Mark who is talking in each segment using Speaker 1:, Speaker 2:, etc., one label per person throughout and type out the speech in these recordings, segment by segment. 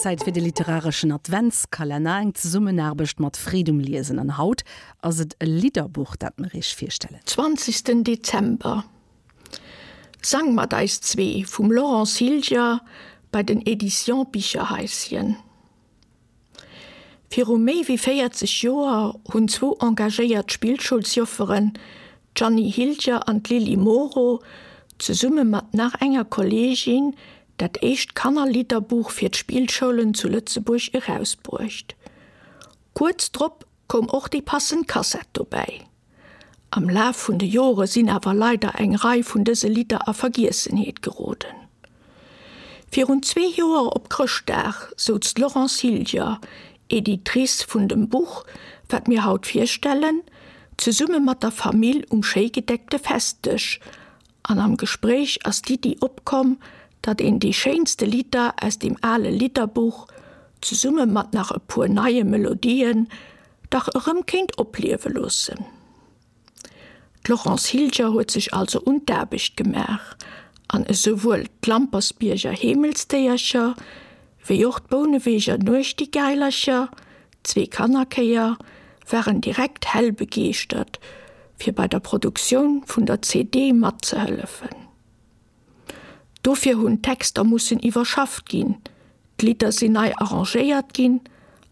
Speaker 1: Zäit fir de literareschen Adventskalenner, eng Zesummenaarbecht mat Freed um Liesen. An haut ass et e Lidderbuch, dat mer iech virstellen.
Speaker 2: Zwanzegsten Dezember, Sang mat eis zwee vum Laurence Hilger bei den Editions Bicherhaischen. Viru méi wéi 40 Joer hunn zwou engagéiert Spillschoulsjofferen, d'Jeanny Hilger an d'Lily Moro, zesumme mat nach enger Kolleegin dat éischt Kannerlidderbuch fir d'Spillschoulen zu Lëtzebuerg erausbruecht. Kuerz drop koum och déi passend Kassett dobäi. Am Laf vun de Jore sinn awer leider eng Rei vun dëse Lidder a Vergiessenheet geroden. Virun zwee Joer op Chrëschtdag souz d'Laurence Hilger, Editrice vun dem Buch, wat mir haut virstellen, zesumme mat der Famill um schéi gedeckte Festdësch an am Gespréich ass d'Iddi opkomm, datt een déi schéinste Lidder aus deem ale Lidderbuch, zesumme mat nach e puer neie Melodien, dach erëm kéint opliewe loossen. D'Laurence Hilger huet sech also un d'Aarbecht gemaach an esouwuel d'Lampersbierger Heemelsdéiercher wéi och d'Bouneweger Nuechtigailercher, zwee Kannerchéier, waren direkt hell begeeschtert, fir bei der Produktioun vun der CD matzehëllefen. Dofir hunn d'Texter mussen iwwerschafft ginn, d'Lidder sinn nei arrangéiert ginn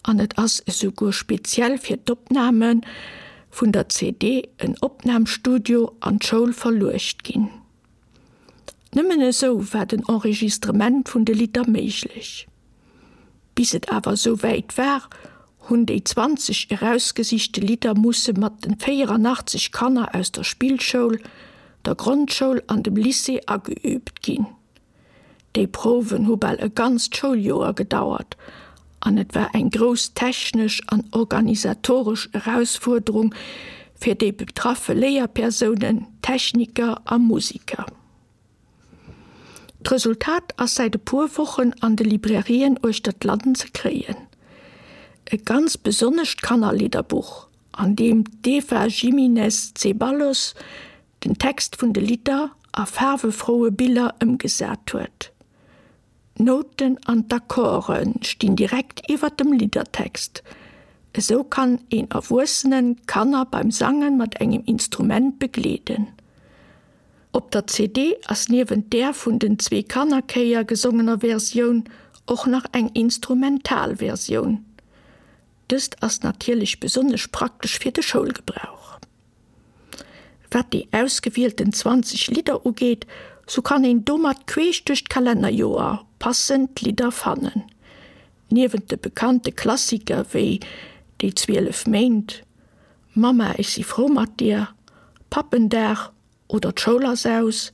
Speaker 2: an et ass esouguer speziell fir d'Opname vun der CD en Opnamstudio an d'Schoul verluecht ginn. Nëmmen esou war den Enregistrement vun de Lidder méiglech. Bis et awer esou wäit war, hunn déi 20 erausgesichte Lidder musse mat den 84 Kanner aus der Spillschoul, der Grondschoul an dem Lycée ageüübt ginn. Déi Prouwen hu bal e ganzt Schouljoer gedauert an et war eng grouss technesch an organisatoresch Erausfuerderung fir déi betraffe Léierpersounen, Techniker a Musiker. D'Resultat ass säit e puer Wochen an de Librairien uechter d'Land ze kréien. E ganz besonnescht Kannerlidderbuch, an deem d'Eva Jiminez Zeballos den Text vun de Lidder a faarwefroue Biller ëmgesat huet. D'Nouten an d'Akkorde stinn direkt iwwer dem Liddertext. Esou kann een Erwuessenen d'Kanner beim Sange mat engem Instrument begleeden. Op der CD ass niewent där vun den zwee Kannerchéier gesongener Versioun och nach eng instrumental Versioun. Dëst ass natierlech besonnesch praktesch fir de Schoulgebrauch. Wat déi ausgewielten 20 Lidder ugeet, sou kann een domat queesch duerch d'Kalennerjoer passend Lidder fannen. Niewent de bekannte Klassiker wéi Déi 12 Méint, Mamma ech si frou mat dir, Pappendag oder D'Schoul ass aus,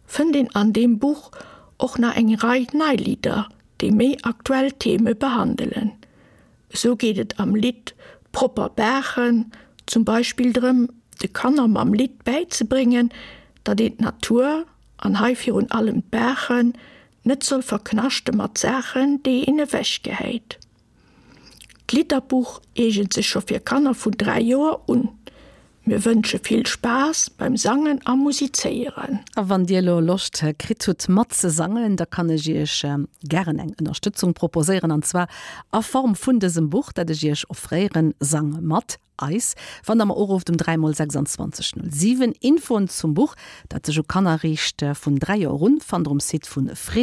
Speaker 2: fënnt een an deem Buch och nach eng Rei nei Lidder, déi méi aktuell Theme behandelen. Esou geet et am Lidd Propper Baachen zum Beispill drëm, de Kanner mam Lidd bäizebréngen, datt een d'Natur, an hei virun allem d'Baachen, net soll verknaschte mat Saachen, déi een ewechgehäit. D'Lidderbuch eegent sech scho fir Kanner vun 3 Joer un. Mir wënsche vill Spaass beim Sangen a Musizéieren.
Speaker 1: A wann dir elo Loscht kritt hutt mat ze sangen, da kann ech iech gären eng Ënnerstëtzung proposéieren, an zwar a Form vun dësem Buch, dat ech iech offréieren, Sang mat eis, wann der mer urufft um 3 mol 26 07. Infoen zum Buch, dat sech u Kanner riicht vun 3 Joer un, fannt der um Site vu.